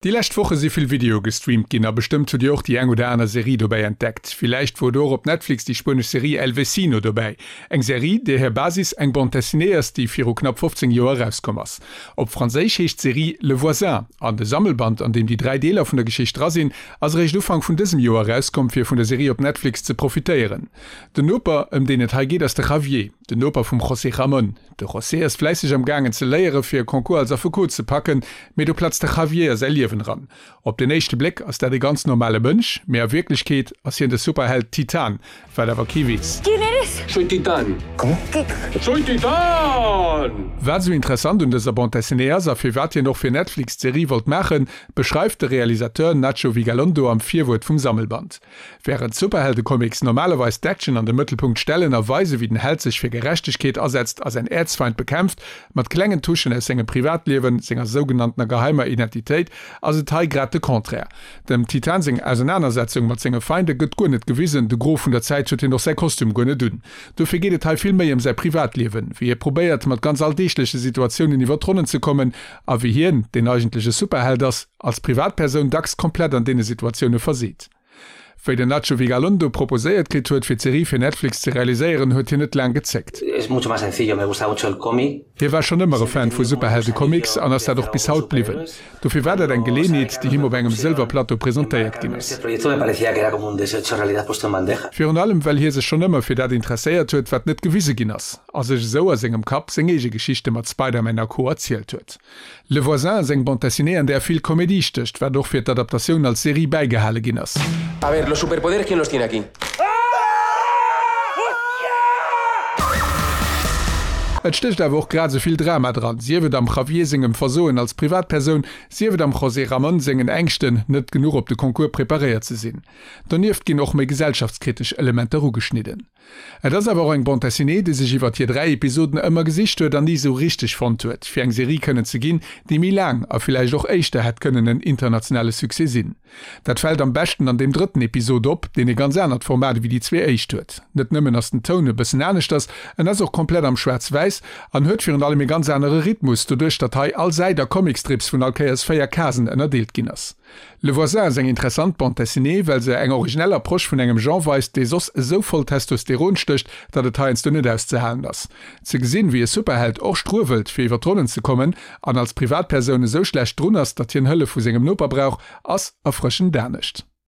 Déi lescht Woche si vill Videoe gestreamt ginn a bestëmmt hutt Dir och déi eng oder aner Serie dobäi entdeckt. Villäicht wor do och op Netflix déi spuenesch Serie El Vecino dobäi. Eng Serie, där hir Basis eng Bande dessinée ass, déi viru knapp 15 Joer erauskomm ass. Op Franséisch heescht d'Serie Le Voisin an de Sammelband, an deem déi 3 Deeler vun der Geschicht dra sinn, ass eréischt Ufank vun dësem Joer erauskomm, fir vun der Serie op Netflix ze profitéieren. Den Noper, ëm deen et hei geet, ass de Javier, den Noper vum José Ramón. De José ass fläisseg am gaangen ze léiere fir e Concours als Affekot ze packen, mee do platzt de Javier a säi Liewen eran. Op den éischte Bléck ass dat e ganz normale Mënsch, mee a Wierklechkeet ass hien de Superheld Titan, wat awer kee weess. Quién eres? Soy Titán. Cómo? Soy Titán! Wat esou interessant un dëser Bande dessinée ass a firwat hien och fir Netflix d'Serie wollt maachen, beschreift de Realisateur Nacho Vigalondo am Virwuert vum Sammelband. Wärend Superheldecomics normalerweis d'Action an de Mëttelpunkt stellen a weise wéi den Held sech fir Gerechtegkeet asetzt a säin Äerzfeind bekämpft, mat klengen Touchen aus sengem Privatliewen, senger sougenanntener geheimer Identitéit, ass et hei grad de Contraire. Dem Titan seng Ausenanersetzung mat senge Feinde gëtt guer net gewisen, de Gros vun der Zäit huet hien och säi Kostüm guer net un. Dofir geet et hei vill méi ëm säi Privatliewen, wéi hie probéiert mat ganz alldeegleche Situatiounen iwwer d'Ronnen ze kommen a wéi hien, deen eigentlech e Superheld ass, als Privatpersoun dacks komplett an deene Situatioune verseet. Wéi den Nacho Vigalondo proposéiert kritt huet, fir d'Serie fir Netflix ze realiséieren, huet hien net laang gezéckt. Hie war schonn ëmmer e Fan vu Superheldecomics an ass dat och bis haut bliwwen. Dofir war dat eng Geleenheet, déi him op engem Sëlwerplateau presentéiert ginn ass. Virun allem, well hie sech schonn ëmmer fir dat interesséiert huet, wat net gewise ginn ass, a sech esou a sengem Kapp seng eege Geschichte mat Spider-Man a Co. Erzielt huet. Le Voisin ass eng Bande dessinée an där vill Komedie stécht, wat och fir d'Adaptatioun als Serie bäigehale ginn ass. A ver, los superpoderes quién los tiene aquí? Et stécht awer och grad esou vill Drama dran, sief et am Javier sengem Versoen als Privatpersoun, sief et am José Ramón sengen Ängschten, net genuch op de Concours preparéiert ze sinn. Donieft ginn och méi gesellschaftskritesch Elementer ugeschnidden. Et ass awer och eng Bande dessinée, déi sech iwwert hir 3 Episoden ëmmer gesicht huet an ni esou richteg fonnt huet, fir eng Serie kënnen ze ginn, déi méi laang a villäicht och éischter hätt kënnen en internationale Succès sinn. Dat fält am beschten an deem drëtten Episod op, deen e ganz anert Format ewéi déi zwee éischt huet. Net nëmmen ass den Toun e bëssen aneschters, en ass och komplett am Schwaarz-Wäiss an huet virun allem e ganz anere Rhythmus, doduerch datt hei all Säit a Comicstrips vun all Kéiers 4 Casen ënnerdeelt ginn ass. Le Voisin ass eng interessant Bande dessinée, well se eng originell Approche vun engem Genre weist, dee soss esou voll Testosteron stécht, datt et heiansdo net auszehalen ass. Ze gesinn, wéi e Superheld och struewelt, fir iwwer d'Ronnen ze kommen, an als Privatpersoun esou schlecht drun ass, datt hien Hëllef vu sengem Noper brauch, ass erfrëschend anescht.